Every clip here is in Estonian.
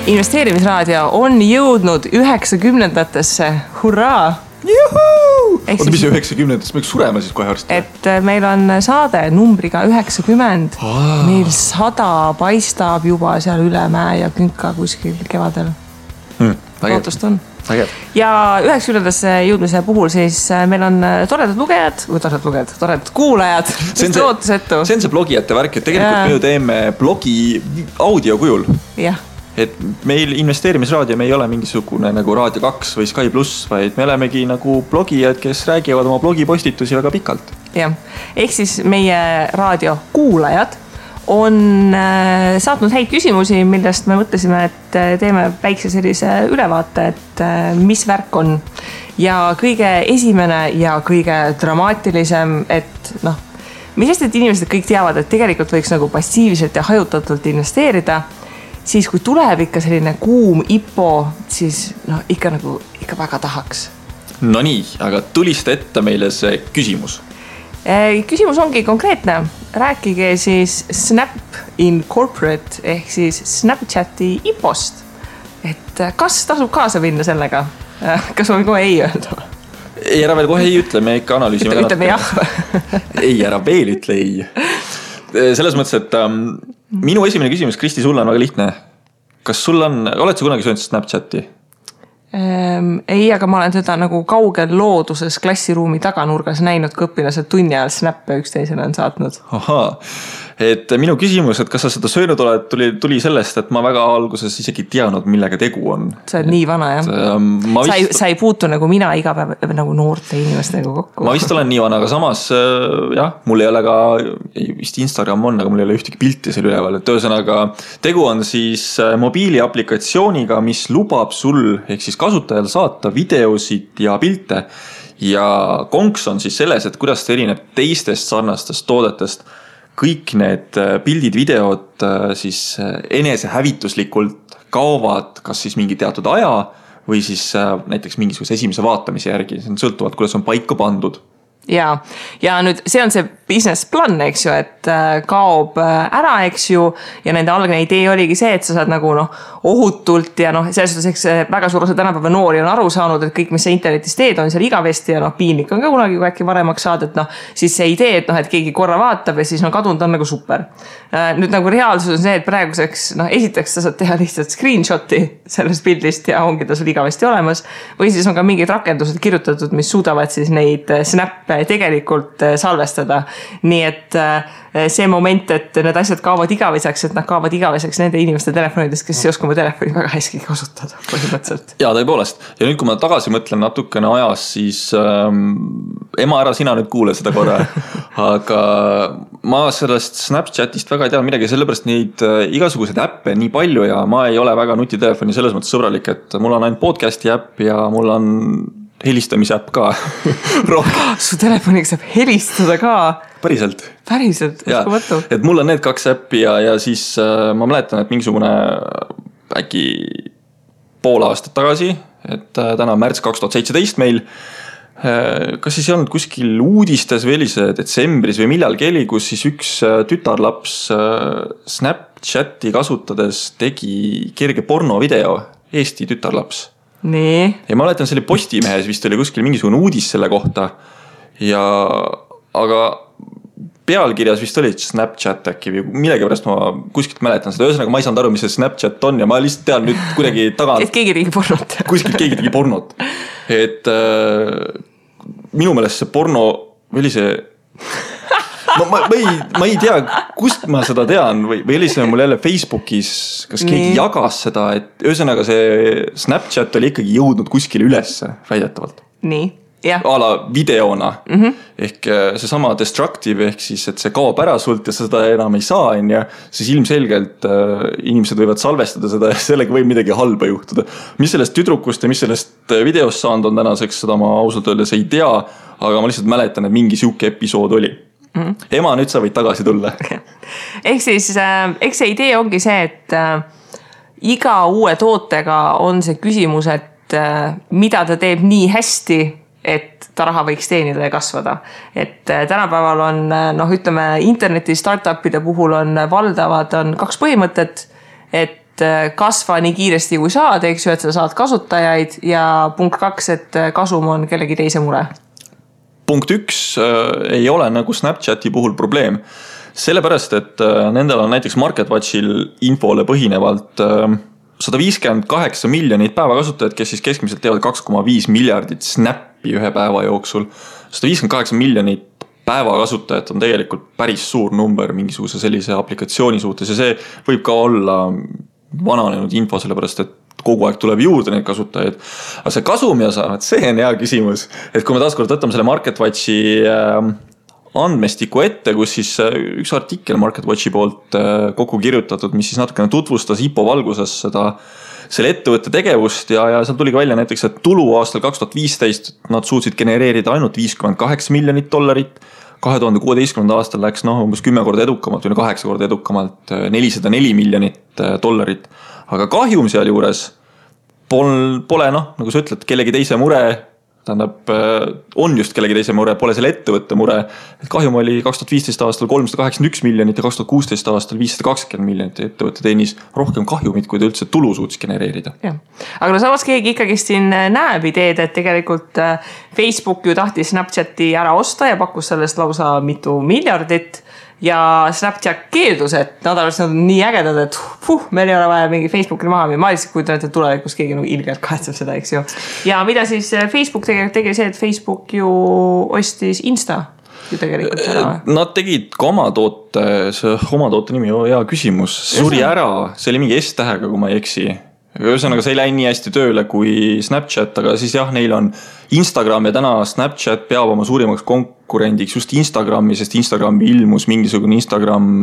investeerimisraadio on jõudnud 90-ndatesse. Hurraa! Juhuu! Oota, mis 90-ndatesse? Me sureme siis kohe arsti? Et meil on saade numbriga 90. Meil 100 paistab juba seal üle mäe ja künka kuskil kevadel. Lootust on. Ja 90-ndasse jõudmise puhul siis meil on toredad kuulajad. See on see blogijate värk, et tegelikult me ju teeme blogi audio kujul. Jah. Et meil investeerimisraadio, me ei ole mingisugune nagu Raadio 2 või Sky Plus, vaid me olemegi nagu blogijad, kes räägivad oma blogipostitusi väga pikalt. Jah. Ehk siis meie raadio kuulajad on saatnud häid küsimusi, millest me mõtlesime, et teeme väikse sellise ülevaate, et mis värk on. Ja kõige esimene ja kõige dramaatilisem, et mis sest, et inimesed kõik teavad, et tegelikult võiks nagu passiivselt ja hajutatult investeerida, siis kui tuleb ikka selline kuum IPO, siis ikka väga tahaks. No nii, aga tuliste ette meile see küsimus. Küsimus ongi konkreetne. Rääkige siis Snap Incorporate ehk siis Snapchati IPO-st. Et kas tasub kaasa minna sellega? Kas ma kohe ei öelda? Ei, ära veel kohe ei ütle, me ikka analüüsime. Ütleme jah. Ei, ära veel ütle ei. Selles mõttes, et minu esimene küsimus, Kristi, sulle on väga lihtne. Kas sul oled sa kunagi söönud Snapchati? Ei, aga ma olen teda nagu kaugel looduses klassiruumi taganurgas näinud, kui õpilased tunni ajal snappe üksteisele on saatnud. Ahaa, et minu küsimus, et kas sa seda söönud oled, tuli sellest, et ma väga alguses isegi teadnud, millega tegu on. Sa oled nii vana, jah? Sa ei puutu nagu mina iga päev nagu noorte inimestega kokku. Ma vist olen nii vana, aga samas jah, mul ei ole ka, vist Instagram on, aga mul ei ole ühtegi pilti seal üleval. Et ühesõnaga, tegu on siis mobiiliaplikatsiooniga, mis lubab sul ehk siis kasutajal saata videosid ja pilte. Ja konks on siis selles, et kuidas ta erineb teistest sarnastest toodetest. Kõik need pildid, videod siis enese hävituslikult kaovad kas siis mingi teatud aja või siis näiteks mingisuguse esimese vaatamise järgi. See on sõltuvalt, kuidas on paika pandud. Ja nüüd see on see business plan, eks ju, et kaob ära, eks ju, ja nende algne idee oligi see, et sa saad nagu ohutult ja selles suhtes väga suur osa tänapäeva noori on aru saanud, et kõik, mis sa internetis teed, on seal igavesti ja piinlik on ka kunagi, kui äkki varemaks saad, et siis see idee, et keegi korra vaatab ja siis kadunud on nagu super. Nüüd nagu reaalsus on see, et praeguseks esiteks sa saad teha lihtsalt screenshoti sellest pildist ja ongi ta sul igavesti olemas, või siis on ka mingid rakendused kirjutatud, mis suudavad siis neid snappe tegelikult salvestada. Nii et see moment, et need asjad kaovad igaveseks, et nad kaovad igaveseks nende inimeste telefonidest, kes ei oska oma telefoni väga hästi kasutada põhimõtteliselt. Ja tõepoolest. Ja nüüd, kui ma tagasi mõtlen natukene ajas, siis ema ära, sina nüüd kuule seda korra. Aga ma sellest Snapchatist väga ei tea midagi, sellepärast neid igasuguseid äppe nii palju ja ma ei ole väga nutitelefoni selles mõttes sõbralik, et mul on ainult podcasti äpp ja mul on helistamise äpp ka. Su telefoniga saab helistada ka? Päriselt, uskumatu. Et mul on need 2 äppi ja siis ma mäletan, et mingisugune äkki pool aastat tagasi, et täna on märts 2017 meil, kas siis ei olnud kuskil uudistes või see detsembris või millalgi oli, kus siis üks tütarlaps Snapchati kasutades tegi kerge pornovideo, Eesti tütarlaps. Nii. Ja ma mäletan, selle Postimehes vist oli kuskil mingisugune uudis selle kohta. Aga pealkirjas vist oli Snapchat äkki või millegi pärast ma kuskilt mäletan seda. Ühesõnaga ma ei saanud aru, mis see Snapchat on ja ma lihtsalt tean nüüd kuidagi tagant. Et keegi tegi pornot. Kuskilt keegi tegi pornot. Et minu meelest see porno või see... Ma ei tea, kust ma seda tean või oli see mul jälle Facebookis, kas keegi jagas seda, et ühesõnaga see Snapchat oli ikkagi jõudnud kuskile ülesse väidetavalt. Nii, jah. Ala videona. Ehk see sama destructive, ehk siis, et see kaob ära sult ja seda enam ei saa, siis ilmselgelt inimesed võivad salvestada seda ja sellega võib midagi halba juhtuda. Mis sellest tüdrukust ja mis sellest videost saanud on tänaseks, seda ma ausalt öeldes ei tea, aga ma lihtsalt mäletan, et mingi siuke episood oli. Ema, nüüd sa võid tagasi tulla. Ehk siis, eks see idee ongi see, et iga uue tootega on see küsimus, et mida ta teeb nii hästi, et ta raha võiks teenida ja kasvada. Et tänapäeval on, ütleme, interneti startupide puhul on valdavad 2 põhimõtet, et et kasva nii kiiresti kui saad, eks ju, et sa saad kasutajaid ja punkt 2, et kasum on kellegi teise mure. Punkt 1 ei ole nagu Snapchati puhul probleem. Sellepärast, et nendel on näiteks MarketWatchil infole põhinevalt 158 miljonit päevakasutajad, kes siis keskmiselt teevad 2,5 miljardit snappi ühe päeva jooksul. 158 miljonit päevakasutajat on tegelikult päris suur number mingisuguse sellise aplikatsiooni suhtes ja see võib ka olla vananenud info, sellepärast et kogu aeg tuleb juurde neid kasutajaid. Aga see kasum ja saavad, see on hea küsimus. Et kui me taaskord võtame selle MarketWatchi andmestiku ette, kus siis üks artikkel MarketWatchi poolt kokku kirjutatud, mis siis natukene tutvustas IPO valguses selle ettevõtte tegevust ja seal tuli välja näiteks, et tulu aastal 2015 nad suutsid genereerida ainult $58 miljonit. 2016. aastal läks umbes 10 korda edukamalt või 8 korda edukamalt $404 miljonit. Aga kahjum seal juures pole nagu sa ütled, kellegi teise mure, tähendab, on just kellegi teise mure, pole selle ettevõtte mure. Et kahjum oli 2015 aastal 381 miljonit ja 2016 aastal 520 miljonit ettevõtte teenis rohkem kahjumit, kui ta üldse tulu suutis genereerida. Ja. Aga samas keegi ikkagi siin näeb ideed, et tegelikult Facebook ju tahtis Snapchati ära osta ja pakkus sellest lausa mitu miljardit. Ja Snapchat keeldus, et nad on nii ägedad, et meil ei ole vaja mingi Facebookil maha. Ma lihtsalt kujutan, et tulevikus keegi ilgelt kahetseb seda, eks ju. Ja mida siis Facebook tegi see, et Facebook ju ostis Insta ju tegelikult ära. Nad tegid ka oma toote nimi, hea küsimus. Suri ära, see oli mingi S-tähega, kui ma ei eksi. Ühesõnaga, see ei läinud nii hästi tööle kui Snapchat, aga siis jah, neil on Instagram ja täna Snapchat peab oma suurimaks konkurendiks just Instagrami, sest Instagrami ilmus mingisugune Instagram,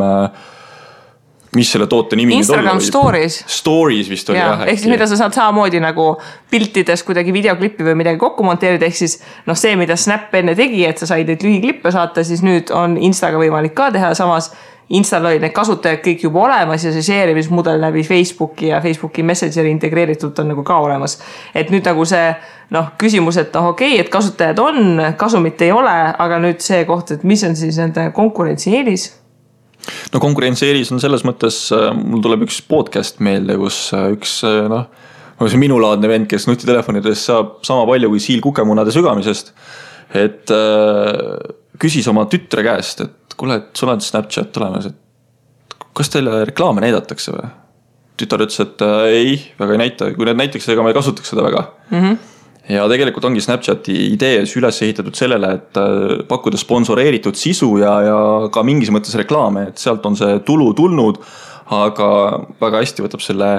mis selle toote nimi Instagram Stories. Stories vist oli jah. Ehk siis mida sa saad samamoodi nagu piltides kuidagi videoklippi või midagi kokku monteerida, ehk siis see, mida Snap enne tegi, et sa said neid lühiklippe saata, siis nüüd on Instaga võimalik ka teha, samas Instal oli need kasutajad kõik juba olemas ja see share'imismudel läbi Facebooki ja Facebooki Messengeri integreeritud on nagu ka olemas. Et nüüd nagu see küsimus, et okei, et kasutajad on, kasumit ei ole, aga nüüd see koht, et mis on siis nende konkurentsieelis? No konkurentsieelis on selles mõttes, mul tuleb üks podcast meelde, kus üks see minulaadne vend, kes nutitelefonides saab sama palju kui siil kukemunade sügamisest, et küsis oma tütre käest, et kuule, et sul on Snapchat olemas, et kas teile reklaame näidatakse või? Tütar ütles, et ei, väga ei näita. Kui need näiteks, ega ma ei kasutaks seda väga. Ja tegelikult ongi Snapchati idees üles ehitatud sellele, et pakkuda sponsoreeritud sisu ja ka mingis mõttes reklaame, et sealt on see tulu tulnud, aga väga hästi võtab selle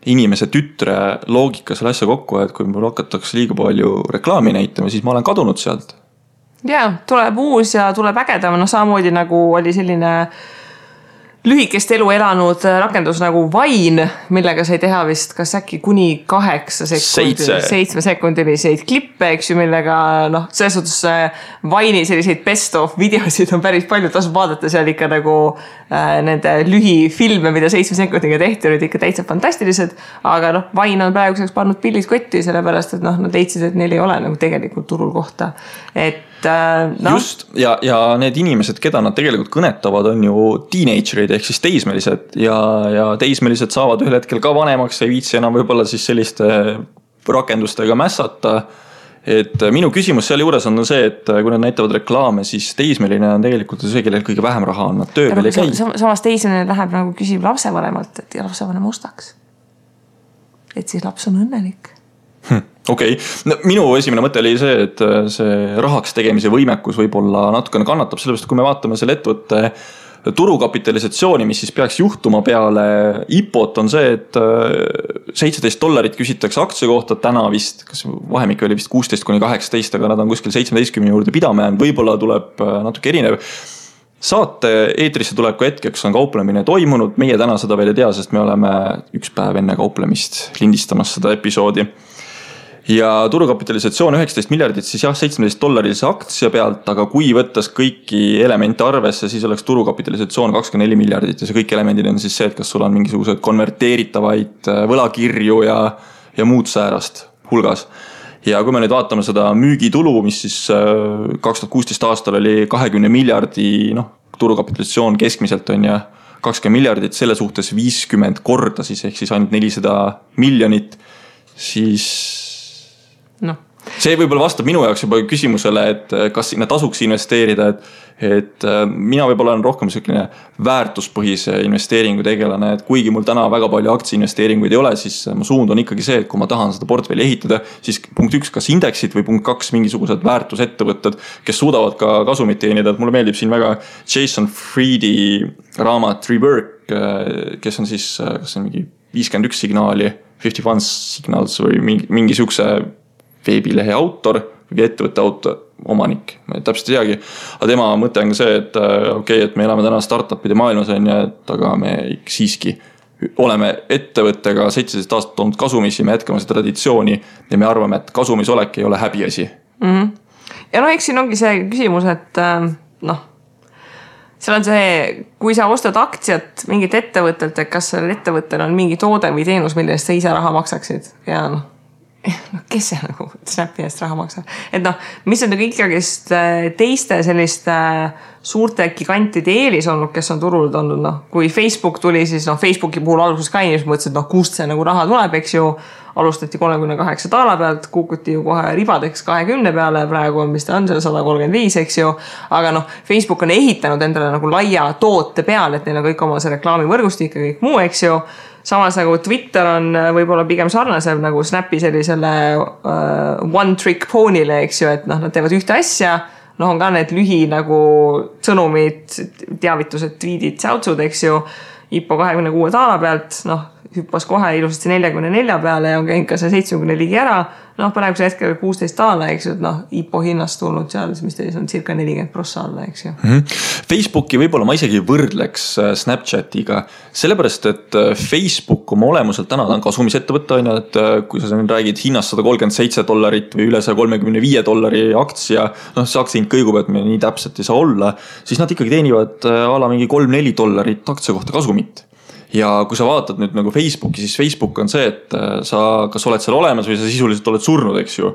inimese tütre loogika selle asja kokku, et kui mul hakatakse liiga palju reklaami näitama, siis ma olen kadunud sealt. Ja, tuleb uus ja tuleb ägedam, samamoodi nagu oli selline lühikest elu elanud rakendus nagu Vine, millega sai teha vist kas äkki kuni 7 sekundiliseid klippe, eks ju, millega selles suhtes Vine'i selliseid best of videosid on päris palju, tasub vaadata seal ikka nagu nende lühifilme, mida 7 sekundiga tehti, olid ikka täitsa fantastilised, aga Vine on praeguseks pannud pillid kotti, sellepärast, et nad leidsid, et neil ei ole nagu tegelikult turul kohta, et just, ja need inimesed, keda nad tegelikult kõnetavad, on ju teenagerid ehk siis teismelised ja teismelised saavad ühel hetkel ka vanemaks, ei viitsi enam võib-olla siis selliste rakendustega mässata. Et minu küsimus selle juures on see, et kui nad näitavad reklaame, siis teismeline on tegelikult see, kellel kõige vähem raha on, nad töö veel ei käi. Samas teismeline läheb nagu küsib lapsevanemalt, et lapsevanem ostaks. Et siis laps on õnnelik. Okei. Minu esimene mõte oli see, et see rahaks tegemise võimekus võib-olla natukene kannatab, sellepärast kui me vaatame selle ettevõtte turukapitalisatsiooni, mis siis peaks juhtuma peale IPO-t, on see, et $17 küsitakse aktsia kohta täna vist, kas vahemik oli vist 16–18, aga nad on kuskil 17 juurde pidama jäänud, võib-olla tuleb natuke erinev. Saate eetrisse tuleku hetkeks on kauplemine toimunud, meie täna seda veel ei tea, sest me oleme üks päev enne kauplemist lindistamas seda episoodi. Ja turukapitalisatsioon 19 miljardit, siis jah, $17 aktsia pealt, aga kui võttes kõiki elemente arvesse, siis oleks turukapitalisatsioon 24 miljardit ja see kõik elemendid on siis see, et kas sul on mingisugused konverteeritavaid võlakirju ja muud säärast hulgas. Ja kui me nüüd vaatame seda müügitulu, mis siis 2016 aastal oli 20 miljardi, turukapitalisatsioon keskmiselt on ja 20 miljardit, selle suhtes 50 korda siis, ehk siis ainult 400 miljonit, siis see võib-olla vastab minu jaoks juba küsimusele, et kas sinna tasuks investeerida, et mina võib-olla olen rohkem selline väärtuspõhise investeeringu tegelane, et kuigi mul täna väga palju aktsiainvesteeringuid ei ole, siis mu suund on ikkagi see, et kui ma tahan seda portfelli ehitada, siis punkt 1, kas indeksid või punkt 2, mingisugused väärtusettevõtted, kes suudavad ka kasumit teenida, et mulle meeldib siin väga Jason Friedi raamat Rework, kes on siis, kas on mingi 51 signaali, 51 signals või mingi sihukese veebilehe autor või ettevõtte omanik, ma täpselt ei teagi. Aga tema mõte on ka see, et et me elame täna startupide maailmas, aga me siiski oleme ettevõttega 17 aastat olnud kasumisi, me jätkame seda traditsiooni ja me arvame, et kasumis olek ei ole häbiasi. Ja eks siin ongi see küsimus, et seal on see, kui sa ostad aktsiat mingit ettevõttelt, et kas sellel ettevõttel on mingi toode või teenus, mille eest sa ise raha maksaksid ja kes see nagu Snapi eest raha maksab? Et mis on nagu ikkagist teiste selliste suurte gigantide eelis olnud, kes on turul olnud, kui Facebook tuli, siis Facebooki puhul alguses ka inimesed mõtlesid, kust see nagu raha tuleb, eks ju, alustati 38 taala pealt, kukuti ju kohe ribadeks 20 peale, praegu on, mis ta on, 135, eks ju, aga Facebook on ehitanud endale nagu laia toote peale, et neil on kõik oma see reklaamivõrgustik ja kõik muu, eks ju. Samas nagu Twitter on võib-olla pigem sarnasem nagu Snapi sellisele one trick pony'le, eks ju, et nad teevad ühte asja, on ka need lühi nagu sõnumid, teavitused, tweetid, säutsud, eks ju, IPO 26 taala pealt, hüppas kohe ilusasti 44 peale ja on käinud ka see 70 ligi ära, praeguse hetkel 16 taala, eks ju, et IPO hinnast tulnud seal, mis teis on circa 40% alla, eks ju. Facebooki võib-olla ma isegi võrdleks Snapchatiga, sellepärast, et Facebook oma olemuselt täna on kasumisettevõtte, et kui sa räägid hinnast $137 või üle $135 aktsia, see aktsia hind kõigub, et me nii täpselt ei saa olla, siis nad ikkagi teenivad ala mingi $3-4 aktsia kohta kasumit. Ja kui sa vaatad nüüd nagu Facebooki, siis Facebook on see, et sa kas oled seal olemas või sa sisuliselt oled surnud, eks ju.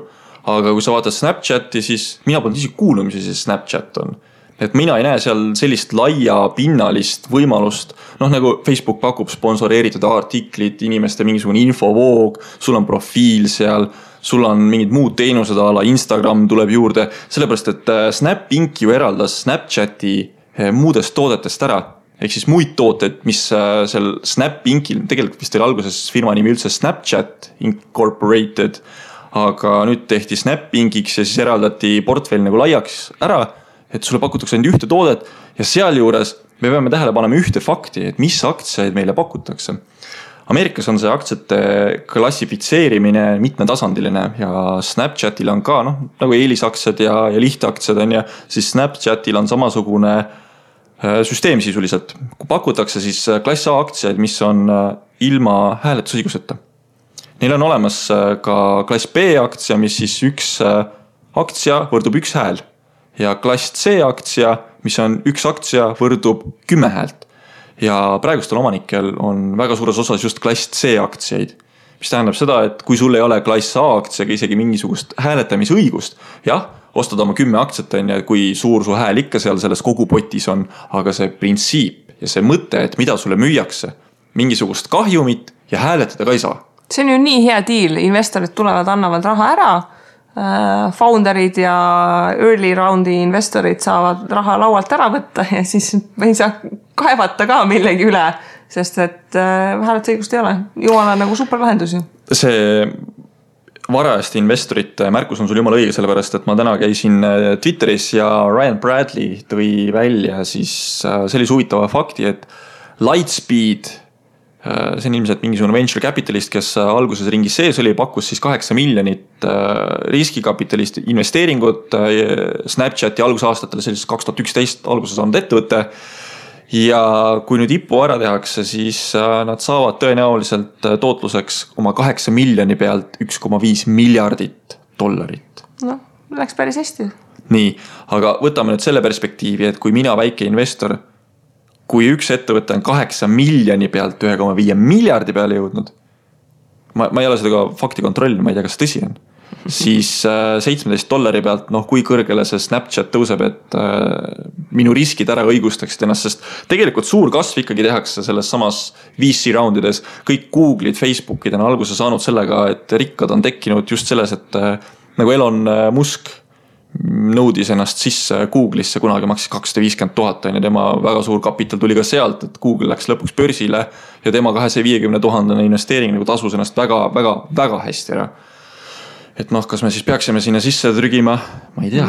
Aga kui sa vaatad Snapchati, siis mina polnud isegi kuulnud, mis see Snapchat on. Et mina ei näe seal sellist laia pinnalist võimalust, nagu Facebook pakub sponsoreeritud artiklid, inimeste mingisugune infovoog, sul on profiil seal, sul on mingid muud teenused ala, Instagram tuleb juurde, sellepärast, et Snap Inc. ju eraldas Snapchati muudest toodetest ära. Ehk siis muid tooted, mis seal Snap Incil, tegelikult vist oli alguses firma nimi üldse Snapchat Incorporated, aga nüüd tehti Snap Inciks ja siis eraldati portfell nagu laiaks ära, et sulle pakutakse ainult ühte toodet ja seal juures me peame tähele panema ühte fakti, et mis aktsiaid meile pakutakse. Ameerikas on see aktsiate klassifitseerimine mitmetasandiline ja Snapchatil on ka nagu eelisaktsiad ja lihtaktsiad on ja siis Snapchatil on samasugune süsteem sisuliselt. Kui pakutakse siis klass A aktsiaid, mis on ilma hääletusõiguseta. Neil on olemas ka klass B aktsia, mis siis üks aktsia võrdub üks hääl. Ja klass C aktsia, mis on üks aktsia võrdub 10 häält. Ja praegustel omanikel on väga suures osas just klass C aktsiaid. Mis tähendab seda, et kui sul ei ole klass A aktsiaga isegi mingisugust hääletamisõigust, jah, ostad oma 10 aktsiat, kui suur su hääl ikka seal selles kogupotis on, aga see printsiip ja see mõte, et mida sulle müüakse, mingisugust kahjumit ja hääletada ka ei saa. See on ju nii hea deal, investorid tulevad, annavad raha ära, founderid ja early roundi investorid saavad raha laualt ära võtta ja siis me ei saa kaevata ka millegi üle, sest et hääletusõigust ei ole. Jumala nagu superlahendus ju. See varajasti investorite märkus on sul jumala õige, sellepärast, et ma täna käisin Twitteris ja Ryan Bradley tõi välja siis sellise huvitava fakti, et Lightspeed, see on ilmselt mingisugune venture capitalist, kes alguses ringis sees oli, pakkus siis 8 miljonit riskikapitalist investeeringut Snapchati algusaastatel, sellises 2011 alguses saanud ettevõtte. Ja kui nüüd IPO ära tehakse, siis nad saavad tõenäoliselt tootluseks oma 8 miljoni pealt $1,5 miljardit. Läks päris hästi. Nii, aga võtame nüüd selle perspektiivi, et kui mina väike investor, kui üks ettevõte on 8 miljoni pealt 1,5 miljardi peale jõudnud, ma ei ole seda ka fakti kontrollinud, ma ei tea, kas tõsi on. siis $17 pealt, noh kui kõrgele see Snapchat tõuseb, et minu riskid ära õigustaksid ennast, sest tegelikult suur kasv ikkagi tehakse selles samas VC roundides. Kõik Google'id, Facebook'id on alguse saanud sellega, et rikkad on tekkinud just selles, et nagu Elon Musk nõudis ennast sisse Google'isse, kunagi maksis $250,000 ja tema väga suur kapital tuli ka sealt, et Google läks lõpuks börsile ja tema $250,000 investeering nagu tasus ennast väga hästi ära. Et noh, kas me siis peaksime sinna sisse trügima? Ma ei tea.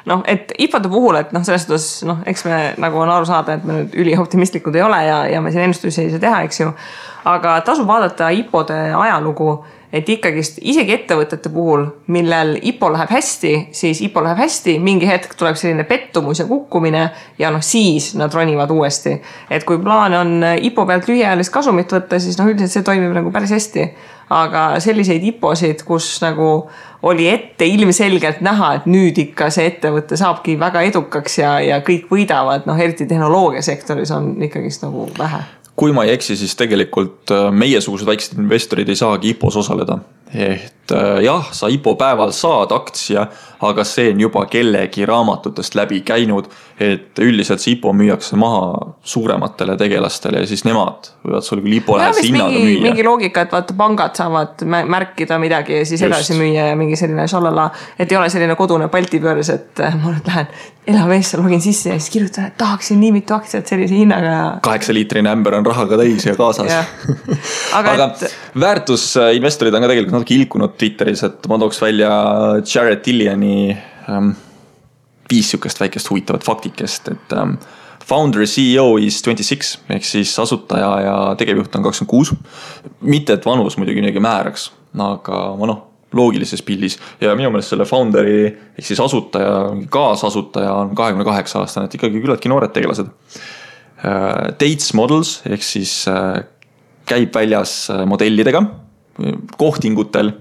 Noh, et IPO-de puhul, et noh, selles suhtes, noh, eks me nagu on aru saada, et me nüüd ülioptimistlikud ei ole ja me siin ennustusi ei saa teha, eks ju. Aga tasub vaadata IPO-de ajalugu, et ikkagist isegi ettevõtete puhul, millel IPO läheb hästi, siis IPO läheb hästi, mingi hetk tuleb selline pettumus ja kukkumine ja noh, siis nad ronivad uuesti. Et kui plaan on IPO pealt lühiajalist kasumit võtta, siis noh, üldiselt see toimib nagu päris hästi. Aga selliseid IPO-sid, kus nagu oli ette ilmselgelt näha, et nüüd ikka see ettevõte saabki väga edukaks ja kõik võidavad, noh, eriti tehnoloogiasektoris on ikkagist nagu vähe. Kui ma ei eksi, siis tegelikult meiesugused väiksed investorid ei saagi IPO-s osaleda. Et jah, sa IPO päeval saad aktsia, aga see on juba kellegi raamatutest läbi käinud, et üldiselt see IPO müüakse maha suurematele tegelastele ja siis nemad võivad sul küll IPO lähese hinnaga müüa. Mingi loogika, et vaata pangad saavad märkida midagi ja siis edasi müüa ja mingi selline šalala, et ei ole selline kodune paltipöörs, et ma nüüd lähen Elaveesse, login sisse ja siis kirjutan, et tahaksin nii mitu aktsiat sellise hinnaga. 8-liitrine ämber on rahaga täis ja kaasas. aga väärtusinvestorid on ka tegelikult natuke ilkunud Twitteris, et ma tooks välja Jared Dilliani 5 sükest väikest huvitavat faktikest, et founder CEO is 26, ehk siis asutaja ja tegevjuht on 26. Mitte, et vanus muidugi midagi määraks, aga noh, loogilises pildis ja minu meelest selle founderi ehk siis asutaja, kaasasutaja on 28 aastane, et ikkagi küllaltki noored tegelased. Dates Models ehk siis käib väljas modellidega kohtingutel.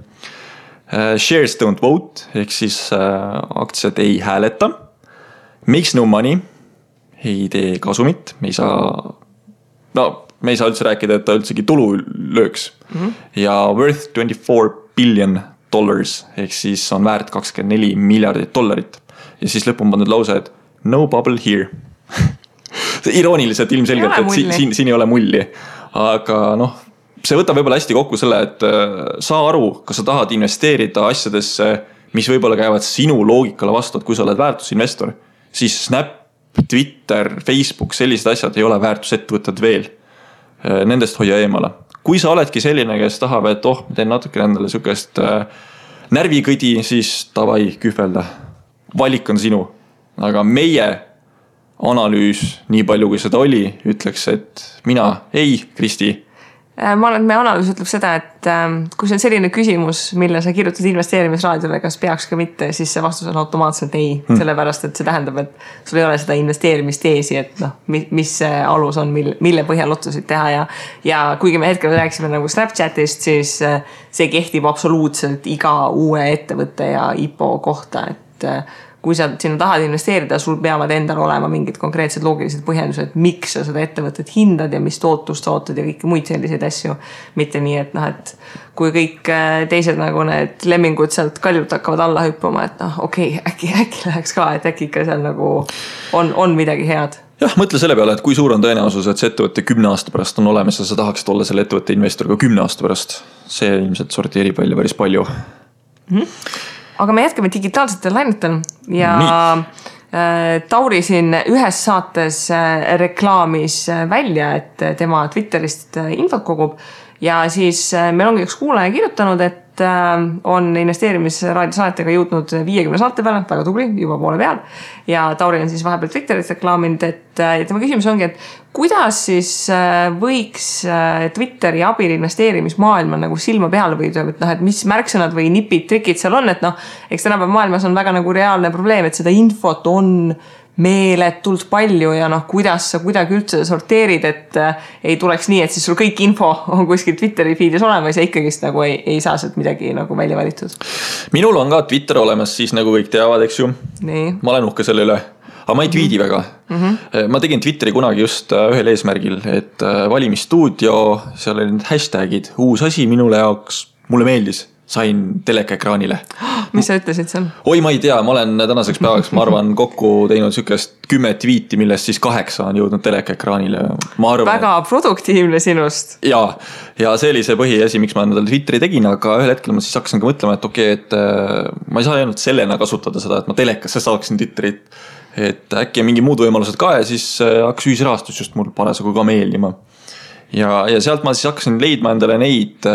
Shares don't vote ehk siis aktsiad ei hääleta. Makes no money, ei tee kasumit, me ei saa üldse rääkida, et ta üldsegi tulu lööks. Ja worth $24 billion ehk siis on väärt $24 miljardit. Ja siis lõpun pandud lause, et no bubble here. Irooniliselt ilmselgelt, et siin ei ole mulli. Aga noh, see võtab võib-olla hästi kokku selle, et saa aru, kas sa tahad investeerida asjadesse, mis võib-olla käivad sinu loogikale vastu, et kui sa oled väärtusinvestor, siis Snap, Twitter, Facebook, sellised asjad ei ole väärtusettevõtted veel. Nendest hoia eemale. Kui sa oledki selline, kes tahab, et ma teen natuke endale sükest närvikõdi, siis tavai kühvelda. Valik on sinu. Aga meie analüüs, nii palju kui seda oli, ütleks, et mina ei, Kristi. Ma arvan, et meie analüüs ütleb seda, et kui see on selline küsimus, mille sa kirjutad investeerimisraadiole, kas peaks ka mitte, siis see vastus on automaatselt ei. Sellepärast, et see tähendab, et sul ei ole seda investeerimisteesi, et noh, mis see alus on, mille põhjal otsuseid teha ja kuigi me hetkel rääksime nagu Snapchatist, siis see kehtib absoluutselt iga uue ettevõtte ja IPO kohta, et kui sa sinna tahad investeerida, sul peavad endal olema mingid konkreetsed loogilised põhjendused, miks sa seda ettevõtet hindad ja mis tootust sa ootad ja kõiki muid selliseid asju. Mitte nii, et noh, et kui kõik teised nagu need lemmingud sealt kaljult hakkavad alla hüppama, et noh, okei, äkki läheks ka, et äkki ikka seal nagu on midagi head. Jah, mõtle selle peale, et kui suur on tõenäosus, et see ettevõtte 10 aasta pärast on olemas ja sa tahaksid olla selle ettevõtte investor ka 10 aasta pärast. See ilmselt sorteerib välja päris palju. Aga me jätkame digitaalsetel lainetel ja Tauri siin ühes saates reklaamis välja, et tema Twitterist infot kogub ja siis meil ongi üks kuulaja kirjutanud, et on investeerimisraadio saatega jõudnud 50 saate peale, väga tubli, juba poole peal ja Tauri on siis vahepeal Twitterit reklaaminud, et tema küsimus ongi, et kuidas siis võiks Twitteri abil investeerimismaailma nagu silma peale võida, et noh, et mis märksõnad või nipid, trikid seal on, et noh, eks tänapäev maailmas on väga nagu reaalne probleem, et seda infot on meeletult palju ja noh, kuidas sa kuidagi üldse sorteerid, et ei tuleks nii, et siis sul kõik info on kuskil Twitteri feedis olemas ja ikkagist nagu ei saa sealt midagi nagu välja valitud. Minul on ka Twitter olemas, siis nagu kõik teavad, eks ju. Nii. Ma olen uhke selle üle. Aga ma ei tweedi väga. Ma tegin Twitteri kunagi just ühel eesmärgil, et valimisstuudio, seal olid need hashtagid, uus asi minule jaoks, mulle meeldis. sain telekaekraanile. Mis sa ütlesid seal? Oi, ma ei tea, ma olen tänaseks päevaks, ma arvan, kokku teinud sükest 10 tweeti, millest siis 8 on jõudnud telekaekraanile. Väga produktiivne sinust. Ja see oli see põhiasi, miks ma endale Twitteri tegin, aga ühel hetkel ma siis hakkasin ka mõtlema, et okei, et ma ei saa ainult sellena kasutada seda, et ma telekasse saaksin Twitterit, et äkki on mingi muud võimalused ka ja siis hakkas ühisrahastus just mul parasjagu ka meeldima. Ja sealt ma siis hakkasin leidma endale neid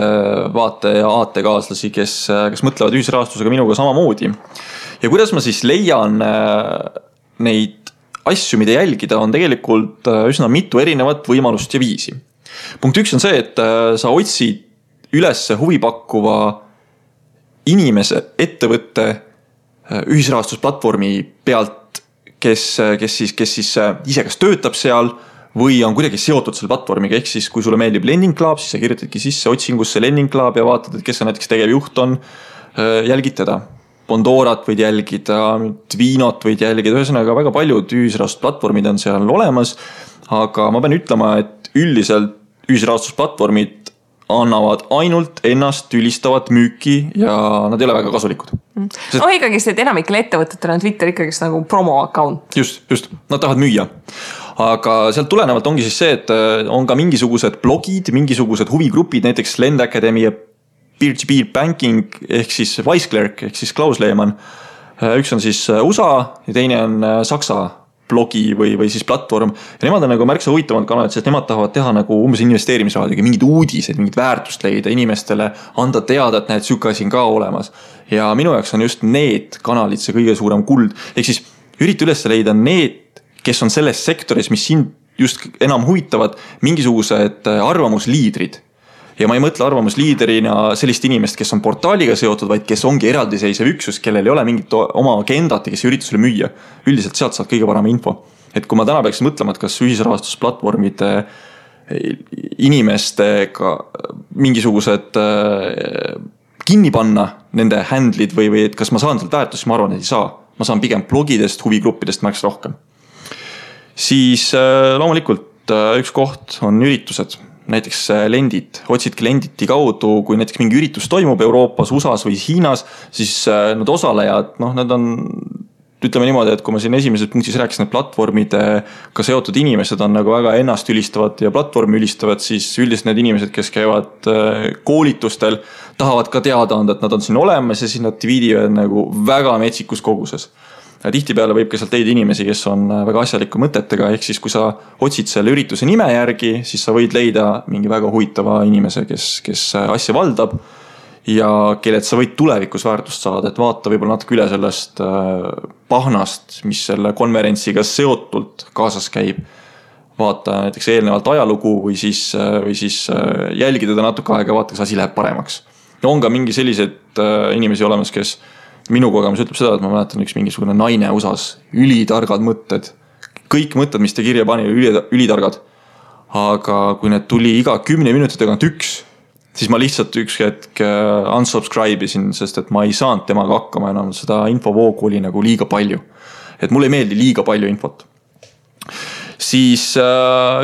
vaate- ja aatekaaslasi, kes mõtlevad ühisrahastusega minuga samamoodi. Ja kuidas ma siis leian neid asju, mida jälgida, on tegelikult üsna mitu erinevat võimalust ja viisi. Punkt 1 on see, et sa otsid üles huvipakkuva inimese, ettevõtte ühisrahastusplatvormi pealt, kes siis ise kas töötab seal või on kuidagi seotud selle platvormiga, ehk siis kui sulle meeldib Lending Club, siis sa kirjutadki sisse otsingusse Lending Club ja vaatad, et kes on näiteks tegevjuht on, jälgid teda. Bondorat võid jälgida, Vinot võid jälgida, ühesõnaga väga paljud ühisrahastusplatvormid on seal olemas, aga ma pean ütlema, et üldiselt ühisrahastusplatvormid annavad ainult ennast ülistavat müüki ja nad ei ole väga kasulikud. No ikkagi see, et enamikel ettevõtetel on Twitter ikkagi nagu promo account. Just, nad tahavad müüa. Aga sealt tulenevalt ongi siis see, et on ka mingisugused blogid, mingisugused huvigrupid, näiteks Lend Academy ja Peer-to-Peer Banking ehk siis Weissklerk ehk siis Klaus Lehmann. Üks on siis USA ja teine on Saksa blogi või siis platvorm. Ja nemad on nagu märksa huvitavad kanalid, sest nemad tahavad teha nagu umbes investeerimisraadiga mingid uudised, mingid väärtust leida inimestele, anda teada, et näed süka siin ka olemas. Ja minu jaoks on just need kanalid see kõige suurem kuld. Ehk siis ürita üles leida need, kes on selles sektoris, mis sind just enam huvitavad, mingisugused arvamusliidrid. Ja ma ei mõtle arvamusliiderina sellist inimest, kes on portaaliga seotud, vaid kes ongi eraldiseisev üksus, kellel ei ole mingit oma agendat ja kes ürita sulle müüa. Üldiselt sealt saad kõige parem info. Et kui ma täna peaksin mõtlema, et kas ühisrahastusplatvormide inimestega mingisugused kinni panna nende handlid või et kas ma saan sealt väärtust, ma arvan, et ei saa. Ma saan pigem blogidest, huvigruppidest märks rohkem. Siis loomulikult üks koht on üritused, näiteks Lendit. Otsidki Lenditi kaudu, kui näiteks mingi üritus toimub Euroopas, USAs või Hiinas, siis need osalejad, nad on, ütleme niimoodi, et kui ma siin esimeses punktis rääkisin, et platvormidega seotud inimesed on nagu väga ennast ülistavad ja platvormi ülistavad, siis üldiselt need inimesed, kes käivad koolitustel, tahavad ka teada anda, et nad on siin olemas ja siis nad tweedivad nagu väga metsikus koguses. Ja tihtipeale võib ka sealt leida inimesi, kes on väga asjaliku mõtetega, ehk siis kui sa otsid selle ürituse nime järgi, siis sa võid leida mingi väga huvitava inimese, kes asja valdab ja kellelt sa võid tulevikus väärtust saada, et vaata võib-olla natuke üle sellest pahnast, mis selle konverentsiga seotult kaasas käib. Vaata näiteks eelnevalt ajalugu või siis jälgida ta natuke aega, vaata, kas asi läheb paremaks. Ja on ka mingi sellised inimesi olemas, kes minu kogemus ütleb seda, et ma mäletan üks mingisugune naine USAs, ülitargad mõtted. Kõik mõtted, mis te kirja pani, ülitargad. Aga kui need tuli iga 10 minuti tagant üks, siis ma lihtsalt üks hetk unsubscribe isin, sest et ma ei saanud temaga hakkama enam. Seda infovoogu oli nagu liiga palju. Et mulle ei meeldi liiga palju infot. Siis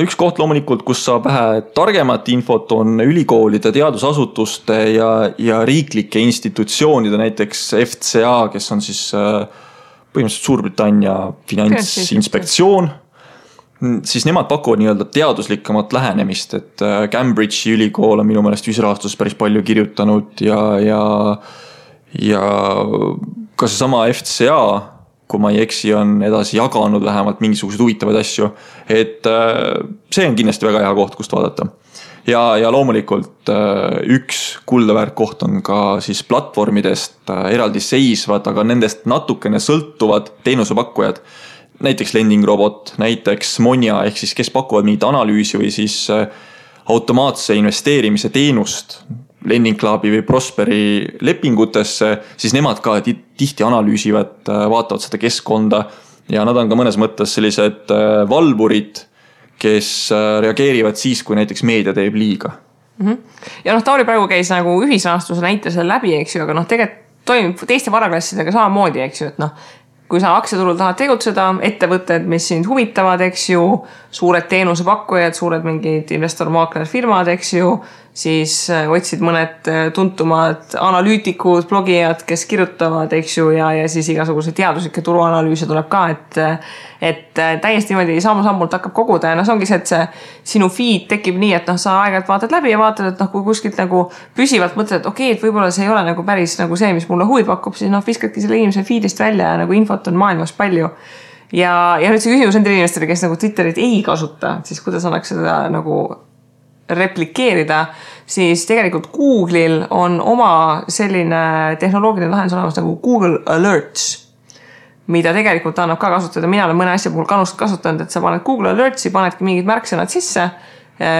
üks koht loomulikult, kus saab vähe targemat infot, on ülikoolide, teadusasutuste ja riiklike institutsioonide, näiteks FCA, kes on siis põhimõtteliselt Suurbritannia finantsinspektsioon. Siis nemad pakuvad nii-öelda teaduslikamat lähenemist, et Cambridge'i ülikool on minu meelest ühisrahastuses päris palju kirjutanud ja ka see sama FCA, kui ma ei eksi, on edasi jaganud vähemalt mingisugused huvitavaid asju. Et see on kindlasti väga hea koht, kust vaadata. Ja loomulikult üks kuldaväärt koht on ka siis platvormidest eraldi seisvad, aga nendest natukene sõltuvad teenusepakkujad. Näiteks Lending Robot, näiteks Monja, ehk siis kes pakuvad mingit analüüsi või siis automaatse investeerimise teenust Lending Clubi või Prosperi lepingutesse, siis nemad ka tihti analüüsivad, vaatavad seda keskkonda ja nad on ka mõnes mõttes sellised valvurid, kes reageerivad siis, kui näiteks meedia teeb liiga. Ja Tauri praegu käis nagu ühisrahastuse näitesel läbi, eks ju, aga tegelikult toimib teiste varaklassidega samamoodi, eks ju, et kui sa aktsiaturul tahad tegutseda, ettevõtted, mis sind huvitavad, eks ju, suured teenusepakkujad, suured mingid investor-maakler firmad, eks ju, siis otsid mõned tuntumad analüütikud, blogijad, kes kirjutavad, eks ju, ja siis igasuguse teaduslikke turuanalüüse tuleb ka, et täiesti niimoodi sammu-sammult hakkab koguda ja see ongi see, et see sinu feed tekib nii, et sa aeg-ajalt vaatad läbi ja vaatad, et kui kuskilt nagu püsivalt mõtled, et okei, et võib-olla see ei ole nagu päris nagu see, mis mulle huvi pakub, siis viskadki selle inimese feedist välja ja nagu infot on maailmas palju. Ja nüüd see küsimus nendele inimestele, kes nagu Twitterit ei kasuta, siis kuidas annaks seda nagu replikeerida, siis tegelikult Google'il on oma selline tehnoloogiline lahendus olemas nagu Google Alerts, mida tegelikult annab ka kasutada. Mina olen mõne asja puhul kasutanud, et sa paned Google Alertsi, panedki mingid märksõnad sisse,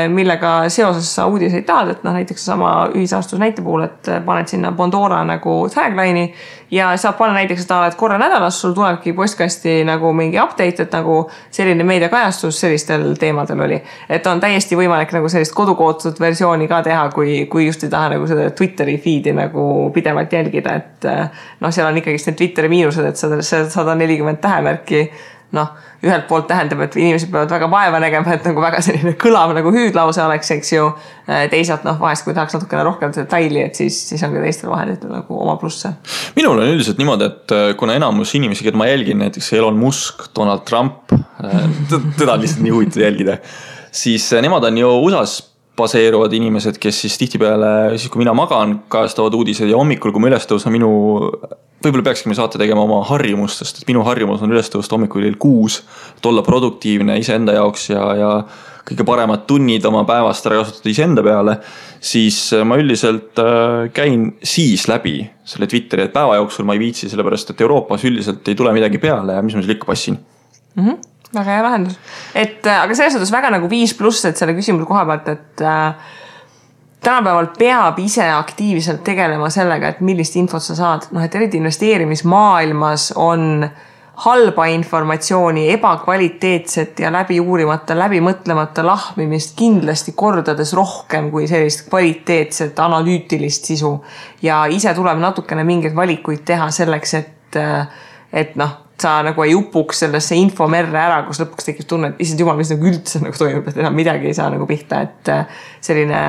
millega seoses sa uudiseid tahad, et näiteks sama ühisastus näite puhul, et paned sinna Pandora nagu tagline'i ja saab panna näiteks seda, et korra nädalas sul tulebki postkasti nagu mingi update, et nagu selline meediakajastus sellistel teemadel oli. Et on täiesti võimalik nagu sellist kodukootud versiooni ka teha, kui just ei taha nagu seda Twitteri feed'i nagu pidevalt jälgida, et seal on ikkagi need Twitteri miinused, et 140 tähemärki ühelt poolt tähendab, et inimesed peavad väga vaeva nägema, et nagu väga selline kõlav nagu hüüdlause oleks, eks ju. Teisalt vahest, kui tahaks natukene rohkem detaili, et siis on ka teistel vahenditel nagu oma plusse. Minul on üldiselt niimoodi, et kuna enamus inimesi, keda ma jälgin, näiteks Elon Musk, Donald Trump, teda on lihtsalt nii huvitav jälgida, siis nemad on ju USAs baseeruvad inimesed, kes siis tihtipeale, siis kui mina magan, kajastavad uudised ja hommikul, kui ma üles tõusan võib-olla peakski me saate tegema oma harjumustest, et minu harjumus on üles tõusta hommikul 6, et olla produktiivne iseenda jaoks ja kõige paremad tunnid oma päevast ära kasutada iseenda peale, siis ma üldiselt käin siis läbi selle Twitteri, et päeva jooksul ma ei viitsi, sellepärast et Euroopas üldiselt ei tule midagi peale ja mis ma seal ikka passin. Väga hea lahendus. Aga selles suhtes väga nagu 5+, et selle küsimuse koha pealt, et tänapäeval peab ise aktiivselt tegelema sellega, et millist infot sa saad. Et eriti investeerimismaailmas on halba informatsiooni, ebakvaliteetset ja läbi uurimata, läbi mõtlemata lahmimist kindlasti kordades rohkem kui sellist kvaliteetset analüütilist sisu. Ja ise tuleb natukene mingeid valikuid teha selleks, et sa nagu ei upuks sellesse infomerre ära, kus lõpuks tekib tunne, et issand jumal, mis nagu üldse nagu toimub, et enam midagi ei saa nagu pihta, et selline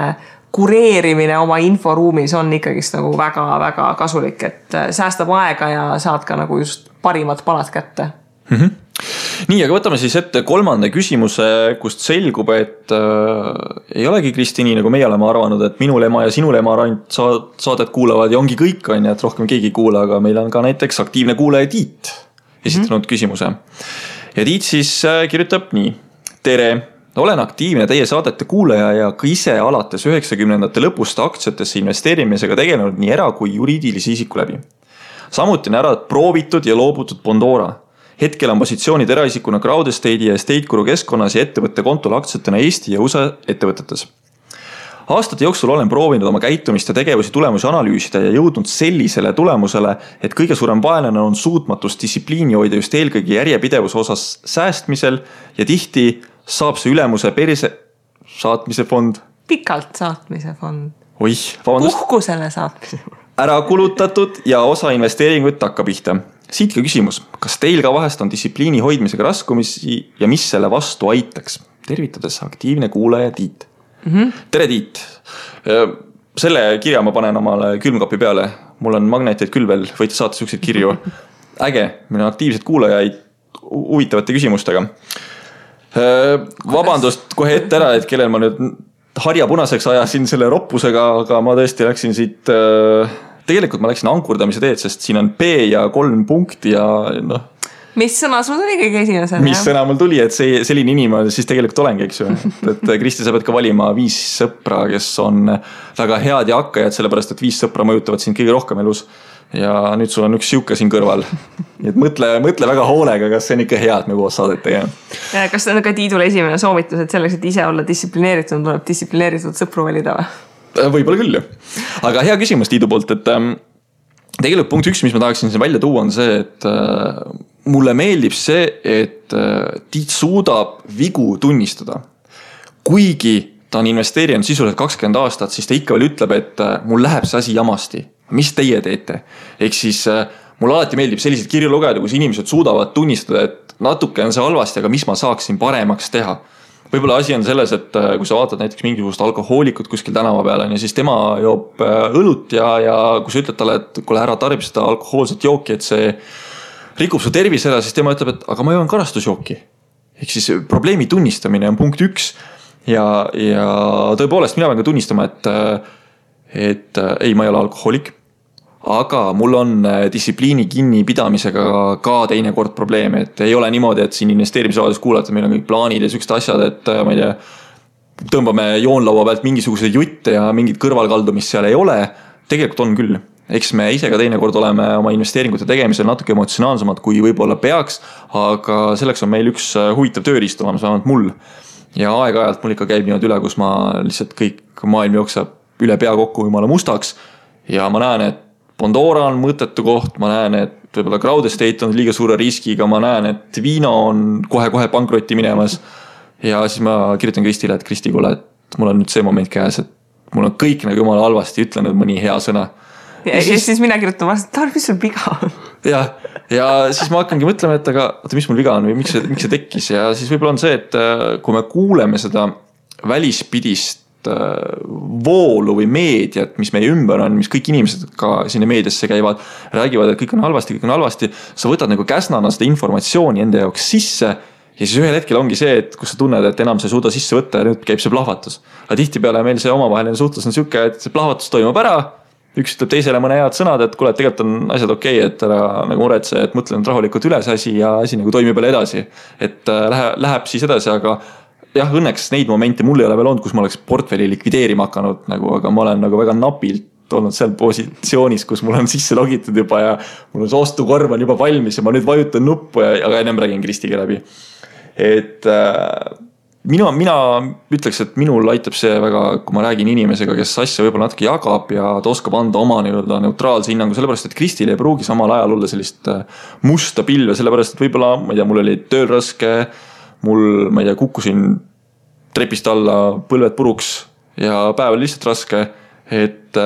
kureerimine oma inforuumis on ikkagist nagu väga-väga kasulik, et säästab aega ja saad ka nagu just parimad palad kätte. Nii, aga võtame siis ette 3. küsimuse, kust selgub, et ei olegi Kristi nii, nagu meie oleme arvanud, et minul ema ja sinul ema ainult saadet kuulavad ja ongi kõik on, et rohkem keegi ei kuula, aga meil on ka näiteks aktiivne kuulaja Tiit esitanud küsimuse. Ja Tiit siis kirjutab nii. Tere! Olen aktiivne teie saadete kuulaja ja ka ise alates 90ndate lõpust aktsiatesse investeerimisega tegelenud nii era- kui juriidilisi isiku läbi. Samuti on ära proovitud ja loobutud Pandora. Hetkel on positsioonid eraisikuna Crowd Estate'i ja Estate Guru keskkonnas ja ettevõtte kontol aktsiatena Eesti ja USA ettevõtetes. Aastate jooksul olen proovinud oma käitumist ja tegevusi tulemusi analüüsida ja jõudnud sellisele tulemusele, et kõige suurem vaenlane on suutmatus distsipliini hoida just eelkõige järjepidevuse osas säästmisel ja tihti saab see ülemuse perse saatmise fond. Pikalt saatmise fond. Oih, vabandust. Puhkusele saatmise fond. Ära kulutatud ja osa investeeringuid takka pihta. Siit ka küsimus, kas teil ka vahest on distsipliini hoidmisega raskumisi ja mis selle vastu aitaks? Tervitades aktiivne kuulaja Tiit. Tere Tiit! Selle kirja ma panen omale külmkapi peale. Mul on magneteid küll veel, võite saata selliseid kirju. Äge, meil on aktiivsed kuulajaid huvitavate küsimustega. Vabandust kohe ette ära, et kellel ma nüüd harja punaseks ajasin selle roppusega, aga ma tõesti läksin siit, tegelikult ma läksin ankurdamise teed, sest siin on P ja 3 punkti ja Mis sõna sul tuli kõige esimesel? Mis sõna mul tuli, et selline inimene siis tegelikult olengi, eks ju. Et Kristi, sa pead ka valima 5 sõpra, kes on väga head ja hakkajad, sellepärast, et 5 sõpra mõjutavad sind kõige rohkem elus. Ja nüüd sul on üks siuke siin kõrval. Nii et mõtle väga hoolega, kas see on ikka hea, et me koos saadet tegema. Kas see on ka Tiidule esimene soovitus, et selleks, et ise olla distsiplineeritud, tuleb distsiplineeritud sõpru valida või? Võib-olla küll. Aga hea küsimus Tiidu poolt, et tegelikult punkt 1, mis ma tahaksin siin välja tuua, on see, et mulle meeldib see, et Tiit suudab vigu tunnistada. Kuigi ta on investeerinud sisuliselt 20 aastat, siis ta ikka veel ütleb, et mul läheb see asi jamasti. Mis teie teete? Ehk siis mul alati meeldib selliseid kirju lugeda, kus inimesed suudavad tunnistada, et natuke on see halvasti, aga mis ma saaksin paremaks teha. võib-olla asi on selles, et kui sa vaatad näiteks mingisugust alkohoolikut kuskil tänava peal on ja siis tema joob õlut ja kui sa ütled talle, et kuule ära tarbi seda alkohoolset jooki, et see rikub su tervise ära, siis tema ütleb, et aga ma joon karastusjooki. Ehk siis probleemi tunnistamine on punkt 1 ja tõepoolest mina pean ka tunnistama, et ei, ma ei ole alkohoolik. Aga mul on distsipliini kinnipidamisega ka teinekord probleeme, et ei ole niimoodi, et siin investeerimisraadios kuulata, meil on kõik plaanid ja sükst asjad, et ma ei tea, tõmbame joonlaua pealt mingisuguse jutte ja mingit kõrvalkaldumist seal ei ole. Tegelikult on küll. Eks me ise ka teinekord oleme oma investeeringute tegemisel natuke emotsionaalsemad, kui võib-olla peaks, aga selleks on meil üks huvitav tööriist olemas, vähemalt mul. Ja aeg-ajalt mul ikka käib niimoodi üle, kus ma lihtsalt kõik maailm jookseb üle pea kokku jumala mustaks ja ma näen, et Pandora on mõttetu koht, ma näen, et võib-olla Crowd Estate on liiga suure riskiga, ma näen, et Vino on kohe-kohe pankrotti minemas ja siis ma kirjutan Kristile, et Kristi, kuule, et mul on nüüd see moment käes, et mul on kõik nagu jumala halvasti, ütlen nüüd mõni hea sõna. Ja siis mina kirjutan vast, et mis sul viga on? Ja siis ma hakkangi mõtlema, et aga mis mul viga on või miks see tekkis ja siis võib-olla on see, et kui me kuuleme seda välispidist voolu või meediat, mis meie ümber on, mis kõik inimesed ka sinna meediasse käivad, räägivad, et kõik on halvasti, sa võtad nagu käsnana seda informatsiooni enda jaoks sisse ja siis ühel hetkel ongi see, et kus sa tunned, et enam sa ei suuda sisse võtta ja nüüd käib see plahvatus. Aga tihtipeale meil see omavaheline suhtlus on siuke, et see plahvatus toimub ära, üks ütleb teisele mõne head sõnad, et kuule, et tegelikult on asjad okei, et ära nagu muretse, et mõtlen rahulikult üles asi ja asi nagu toimib jälle edasi. Et läheb siis edasi, aga jah, õnneks neid momente mul ei ole veel olnud, kus ma oleks portfelli likvideerima hakanud, nagu, aga ma olen nagu väga napilt olnud seal positsioonis, kus mul on sisse logitud juba ja mul on see ostukorv on juba valmis ja ma nüüd vajutan nuppu aga ennem räägin Kristiga läbi. Et mina ütleks, et minul aitab see väga, kui ma räägin inimesega, kes asja võib-olla natuke jagab ja ta oskab anda oma neutraalse hinnangu, sellepärast, et Kristil ei pruugi samal ajal olla sellist musta pilve, sellepärast, et võib-olla, ma ei tea, mul oli tööl raske, mul, ma ei tea, kukkusin trepist alla, põlved puruks ja päev oli lihtsalt raske, et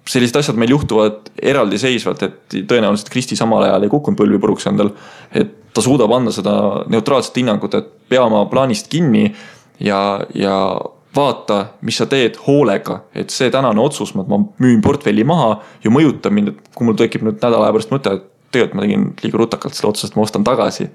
sellised asjad meil juhtuvad eraldiseisvalt, et tõenäoliselt Kristi samal ajal ei kukkunud põlvi puruks endal, et ta suudab anda seda neutraalset hinnangut, et pea oma plaanist kinni ja vaata, mis sa teed hoolega, et see tänane otsus, ma müün portfelli maha ja mõjutab mind, et kui mul tekib nüüd nädala aja pärast mõte, et tegelikult ma tegin liiga rutakalt selle otsusest, ma ostan tagasi.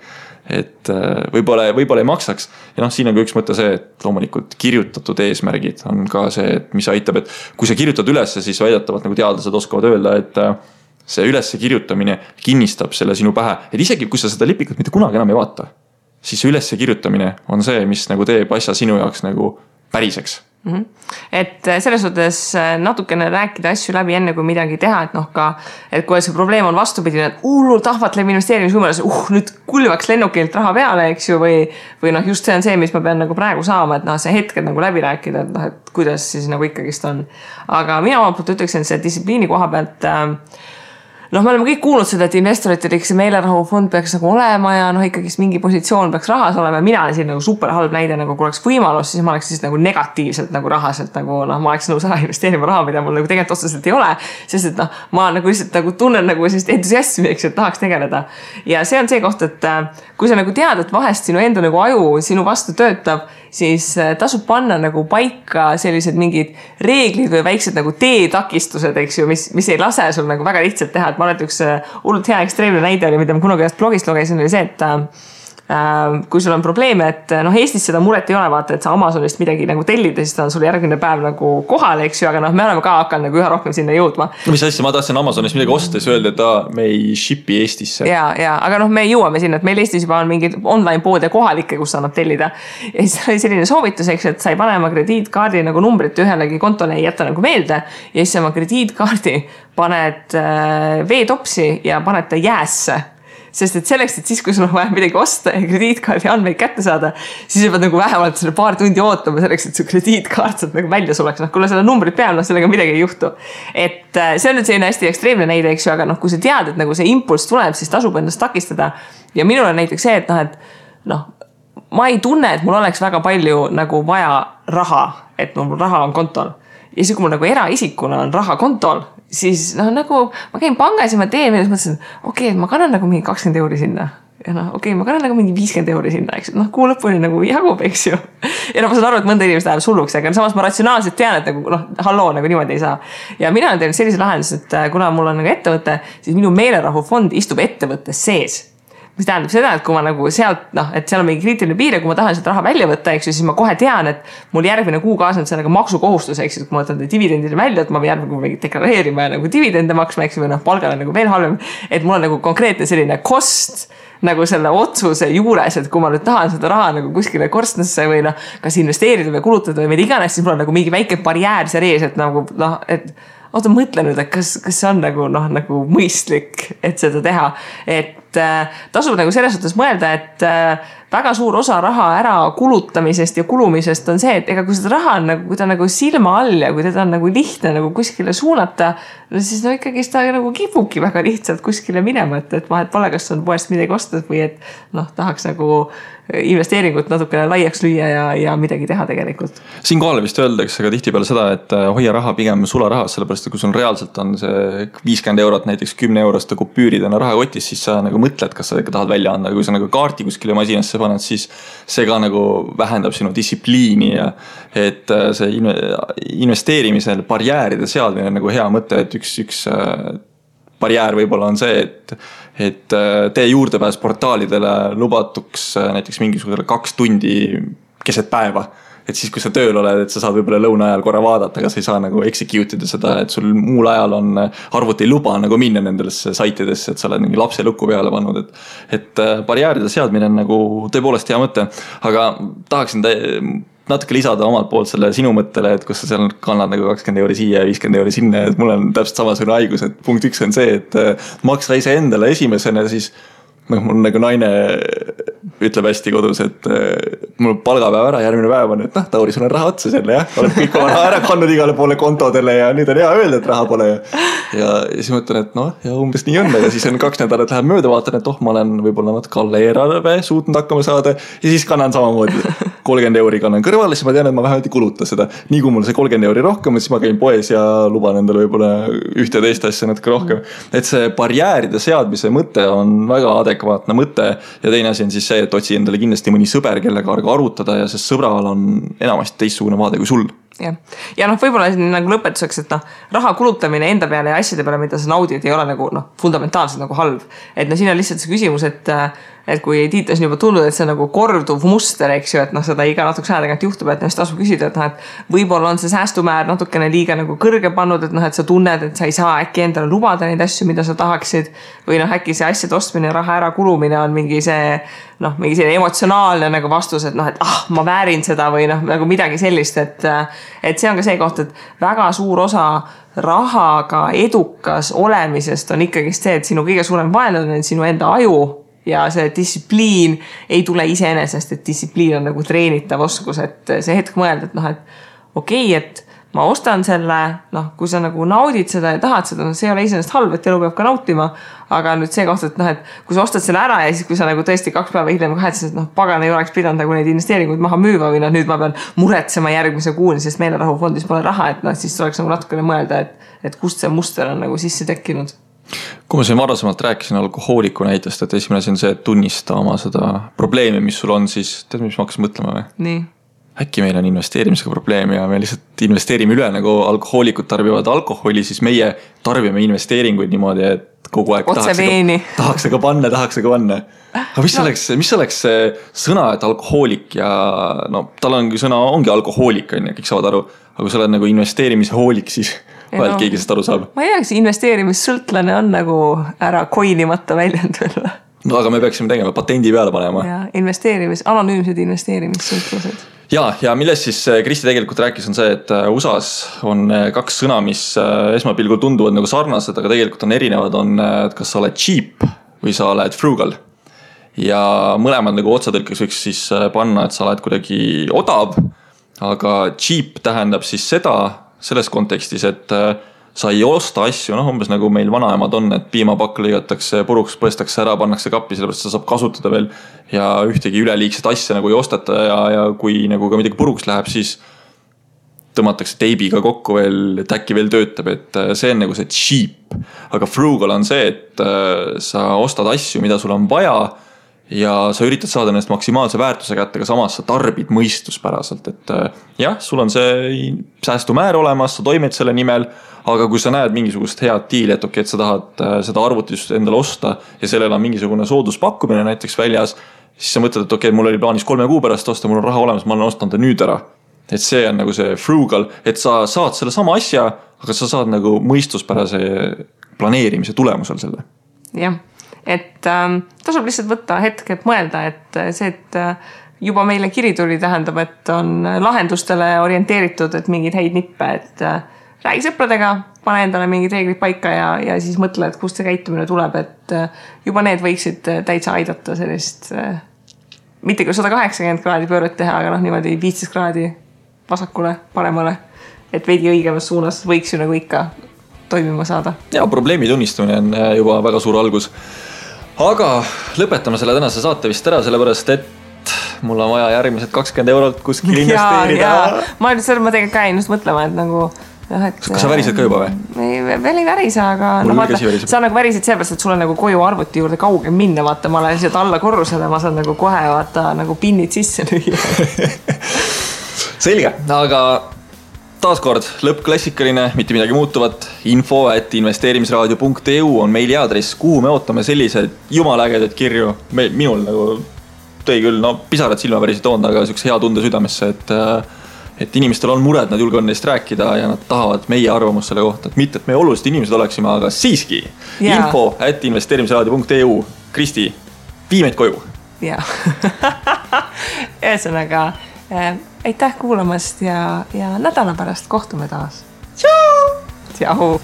Et võib-olla ei maksaks. Ja siin on ka üks mõte see, et loomulikult kirjutatud eesmärgid on ka see, et mis aitab, et kui sa kirjutad ülesse, siis väidetavalt nagu teadlased oskavad öelda, et see ülesse kirjutamine kinnistab selle sinu pähe. Et isegi kui sa seda lipikut mitte kunagi enam ei vaata, siis ülesse kirjutamine on see, mis nagu teeb asja sinu jaoks nagu päriseks. Et selles suhtes natukene rääkida asju läbi enne kui midagi teha, et kui see probleem on vastupidine, et hullult ahvatleb investeerimisvõimalus, nüüd kulvaks lennukilt raha peale, eks ju, või just see on see, mis ma pean nagu praegu saama, et see hetked nagu läbi rääkida, et kuidas siis nagu ikkagist on. Aga mina omalt poolt ütleksin, et see distsipliini koha pealt me oleme kõik kuulnud seda, et investoritel see meelerahufond peaks nagu olema ja ikkagist mingi positsioon peaks rahas olema. Mina olen siin nagu super halb näide, nagu kui oleks võimalus, siis ma oleks siis nagu negatiivselt nagu rahaselt, nagu ma oleks nõus ära investeerima raha, mida mul nagu tegelikult otseselt ei ole, sest et ma nagu lihtsalt nagu tunnen nagu sellist entusiasmi, eks, et tahaks tegeleda. Ja see on see koht, et kui sa nagu tead, et vahest sinu enda nagu aju sinu vastu töötab, siis tasub panna nagu paika sellised mingid reeglid või väiksed nagu teetakistused, eks ju, mis ei lase sul nagu väga lihtsalt teha, et ma olen üks hullult hea ekstreemne näide oli, mida ma kunagi ühest blogist lugesin, oli see, et kui sul on probleeme, et Eestis seda muret ei ole, vaata, et sa Amazonist midagi nagu tellida, siis ta on sul järgmine päev nagu kohal, eks ju, aga me oleme ka hakanud nagu üha rohkem sinna jõudma. Mis asja, ma tahtsin Amazonist midagi ostes öelda, et me ei shipi Eestisse. Ja, aga me jõuame sinna, et meil Eestis juba on mingid online poode kohalikke, kus annab tellida. Ja siis oli selline soovitus, eks, et sa ei pane oma krediitkaardi nagu numbrit ühelegi kontole ei jätta nagu meelde ja siis oma krediitkaardi paned veetopsi ja paned ta jäässe. Sest et selleks, et siis, kui sul on vaja midagi osta ja krediitkaardi andmeid kätte saada, siis sa pead nagu vähemalt selle paar tundi ootama selleks, et su krediitkaart saab nagu välja suleks. Kui seda numbrit peal, sellega midagi ei juhtu. Et see on nüüd selline hästi ekstreemne näide, eks ju, aga kui sa tead, et nagu see impulss tuleb, siis tasub ennast takistada. Ja minul on näiteks see, et ma ei tunne, et mul oleks väga palju nagu vaja raha, et mul raha on kontol. Ja siis, kui mul nagu eraisikuna on raha kontol, siis nagu ma käin pangas ja ma teen, ja siis mõtlesin, okei, et ma kannan nagu mingi 20 € sinna. ja noh, okei, ma kannan nagu mingi 50 euri sinna, eks, noh, kuu lõpuni nagu jagub, eks ju. Ja noh, ma saan aru, et mõnda inimest läheb sulluks, aga samas ma ratsionaalselt tean, et nagu noh, halloo, nagu niimoodi ei saa. Ja mina olen teinud sellise lahendus, et kuna mul on nagu ettevõte, siis minu meelerahufond istub ettevõttes sees. Mis tähendab seda, et kui ma nagu sealt, noh, et seal on mingi kriitiline piir ja kui ma tahan sealt raha välja võtta, eks ju, siis ma kohe tean, et mul järgmine kuu kaasneb sellega maksukohustus, eks ju, kui ma võtan dividendile välja, et ma pean järgmine kuu deklareerima ja nagu dividende maksma, eks ju, või noh, palgal on nagu veel halvem, et mul on nagu konkreetne selline kost nagu selle otsuse juures, et kui ma nüüd tahan seda raha nagu kuskile korstnasse või noh, kas investeerida või kulutada või mida iganes, siis mul on nagu mingi väike barjäär seal ees, et nagu noh, et oota, mõtle nüüd, et kas see on nagu noh, nagu mõistlik, et seda teha, et tasub nagu selles suhtes mõelda, et väga suur osa raha ära kulutamisest ja kulumisest on see, et ega kui seda raha on nagu, kui ta nagu silma all ja kui teda on nagu lihtne nagu kuskile suunata, no siis no ikkagi ta nagu kipubki väga lihtsalt kuskile minema, et vahet pole, kas on poest midagi ostnud või et noh, tahaks nagu investeeringut natukene laiaks lüüa ja midagi teha tegelikult. Siinkohal vist öeldakse ka tihtipeale seda, et hoia raha pigem sularahas, sellepärast et kui sul reaalselt on see 50 eurot, näiteks 10 euroste kupüüridena rahakotis, siis sa nagu mõtled, kas sa ikka tahad välja anda. Kui sa nagu kaarti kuskile masinasse paned, siis see ka nagu vähendab sinu distsipliini ja et see investeerimisel barjääride seadmine nagu hea mõte, et üks barjäär võib-olla on see, et tee juurdepääs portaalidele lubatuks näiteks mingisugusele 2 tundi keset päeva. Et siis, kui sa tööl oled, et sa saad võib-olla lõuna ajal korra vaadata, aga sa ei saa nagu execute ida seda, et sul muul ajal on arvuti ei luba nagu minna nendesse saitidesse, et sa oled mingi lapse lukku peale pannud. Et barjääride seadmine on nagu tõepoolest hea mõte, aga tahaksin natuke lisada omalt poolt selle sinu mõttele, et kus sa seal kannad nagu 20 euri siia ja 50 euri sinna, et mul on täpselt samasugune haigus, et punkt 1 on see, et maksa ise endale esimesena, siis mul nagu naine ütleb hästi kodus, et mul palgapäev ära, järgmine päev on, et noh, Tauri, sul on raha otsa selle, jah, oled kõik oma raha ära kannud igale poole kontodele ja nüüd on hea öelda, et raha pole. Ja siis mõtlen, et noh, ja umbes nii on, ja siis on 2 nädalat läheb mööda, vaatan, et ma olen võib-olla natuke alla eelarve suutnud hakkama saada ja siis kannan samamoodi 30 euri kannan kõrvale, siis ma tean, et ma vähemalt ei kuluta seda. Nii kui mul see 30 euri rohkem, siis ma käin poes ja luban endale võib-olla ühte teist asja natuke rohkem. Et see barjääride seadmise mõte on väga adekvaatne mõte ja teine asi on siis see, et otsi endale kindlasti mõni sõber, kellega arutada ja sest sõbral on enamasti teistsugune vaade kui sul. Ja noh, võib-olla nagu lõpetuseks, et noh, raha kulutamine enda peale ja asjade peale, mida sa naudid, ei ole nagu noh, fundamentaalselt nagu halb. Et no siin on lihtsalt see küsimus, et kui Tiitas on juba tulnud, et see on nagu korduv muster, eks ju, et noh, seda iga natuke aja tagant juhtub, et noh, siis tasub küsida, et noh, et võib-olla on see säästumäär natukene liiga nagu kõrge pannud, et noh, et sa tunned, et sa ei saa äkki endale lubada neid asju, mida sa tahaksid või noh, äkki see asjade ostmine ja raha ära kulumine on mingi see noh, mingi selline emotsionaalne nagu vastus, et noh, et ma väärin seda või noh, nagu midagi sellist, et see on ka see koht, et väga suur osa rahaga edukas olemisest on ikkagi see, et sinu kõige suurem vaenlane on sinu enda aju ja see distsipliin ei tule iseenesest, et distsipliin on nagu treenitav oskus, et see hetk mõelda, et noh, et okei, et ma ostan selle, noh, kui sa nagu naudid seda ja tahad seda, no see ei ole iseenesest halb, et elu peab ka nautima, aga nüüd see koht, et noh, et kui sa ostad selle ära ja siis kui sa nagu tõesti 2 päeva hiljem kahetses, et noh, pagan ei oleks pidanud nagu neid investeeringuid maha müüma või noh, nüüd ma pean muretsema järgmise kuuni, sest meelerahufondis pole raha, et noh, siis tuleks nagu natukene mõelda, et kust see muster on nagu sisse tekkinud. Kui ma siin varasemalt rääkisin alkohooliku näitest, et esimene asi on see, et tunnista oma seda probleemi, mis sul on, siis tead, mis ma hakkasin mõtlema või? Nii. Äkki meil on investeerimisega probleem ja me lihtsalt investeerime üle, nagu alkohoolikud tarbivad alkoholi, siis meie tarbime investeeringuid niimoodi, et kogu aeg tahaks aga panna. Aga mis oleks see sõna, et alkohoolik ja no tal ongi sõna, ongi alkohoolik, on ja kõik saavad aru, aga kui sa oled nagu investeerimise hoolik, siis vahelt keegi sest aru saab. Ma ei tea, kas investeerimissõltlane on nagu ära koinimata väljend veel. No aga me peaksime tegema, patendi peale panema. Ja anonüümsed investeerimissõltlased. Ja millest siis Kristi tegelikult rääkis on see, et USAs on 2 sõna, mis esmapilgul tunduvad nagu sarnased, aga tegelikult on erinevad, on, et kas sa oled cheap või sa oled frugal. Ja mõlemad nagu otsatõlkeks võiks siis panna, et sa oled kuidagi odav, aga cheap tähendab siis seda selles kontekstis, et sa ei osta asju, noh umbes nagu meil vanaemad on, et piimapakk lõigatakse puruks, põestakse ära, pannakse kappi, sellepärast seda saab kasutada veel ja ühtegi üleliigset asja nagu ei ostata ja kui nagu ka midagi puruks läheb, siis tõmmatakse teibiga kokku veel, et äkki veel töötab, et see on nagu see cheap. Aga frugal on see, et sa ostad asju, mida sul on vaja ja sa üritad saada nendest maksimaalse väärtuse kätte, aga samas sa tarbid mõistuspäraselt, et jah, sul on see säästumäär olemas, sa toimed selle nimel, aga kui sa näed mingisugust head diili, et okei, et sa tahad seda arvutist endale osta ja sellel on mingisugune sooduspakkumine näiteks väljas, siis sa mõtled, et okei, mul oli plaanis 3 kuu pärast osta, mul on raha olemas, ma olen ostanud ta nüüd ära. Et see on nagu see frugal, et sa saad selle sama asja, aga sa saad nagu mõistuspärase planeerimise tulemusel selle. Jah, et tasub lihtsalt võtta hetk, et mõelda, et see, et juba meile kiri tuli tähendab, et on lahendustele orienteeritud, et mingid häid nippe, et räägi sõpradega, pane endale mingid reeglid paika ja siis mõtle, et kust see käitumine tuleb, et juba need võiksid täitsa aidata sellist, mitte küll 180 kraadi pööret teha, aga niimoodi 15 kraadi vasakule, paremale, et veidi õigemas suunas võiks ju nagu ikka toimima saada. Ja probleemi tunnistamine on juba väga suur algus. Aga lõpetame selle tänase saate vist ära, sellepärast et mul on vaja järgmised 20 eurot kuskil investeerida. Ma tegelikult ka just mõtlema, et nagu kas sa värised ka juba või? Veel ei värise, aga sa nagu värisid sellepärast, et sul on nagu koju arvuti juurde kaugem minna, vaata, ma olen lihtsalt alla korrusele, ma saan nagu kohe vaata nagu pinnid sisse lüüa. Selge, aga taaskord lõppklassikaline, mitte midagi muutuvat, info@investeerimisraadio.eu on meiliaadress, kuhu me ootame sellised jumalägedad kirju. Minul nagu tõi küll, pisarad silma päris toond, aga sükse hea tunde südamesse, et inimestel on mured, nad julgevad neist rääkida ja nad tahavad meie arvamust selle kohta, et mitte, et meie olulised inimesed oleksime, aga siiski info@investeerimisraadio.eu. Kristi, vii meid koju. Jaa. Ühesõnaga, aitäh kuulamast ja nädala pärast kohtume taas. Tšau! Tšau!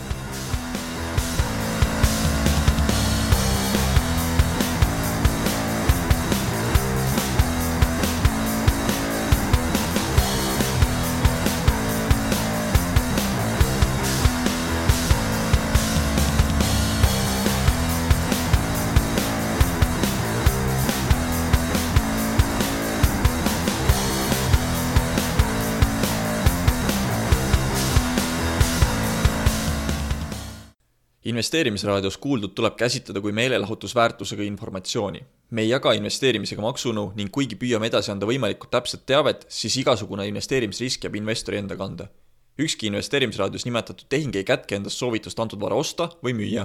Investeerimisraadios kuuldud tuleb käsitleda kui meelelahutusväärtusega informatsiooni. Me ei jaga investeerimisega maksunu ning kuigi püüame edasi anda võimalikult täpset teavet, siis igasugune investeerimisrisk jääb investori enda kanda. Ükski investeerimisraadios nimetatud tehing ei kätke endast soovitust antud vara osta või müüa.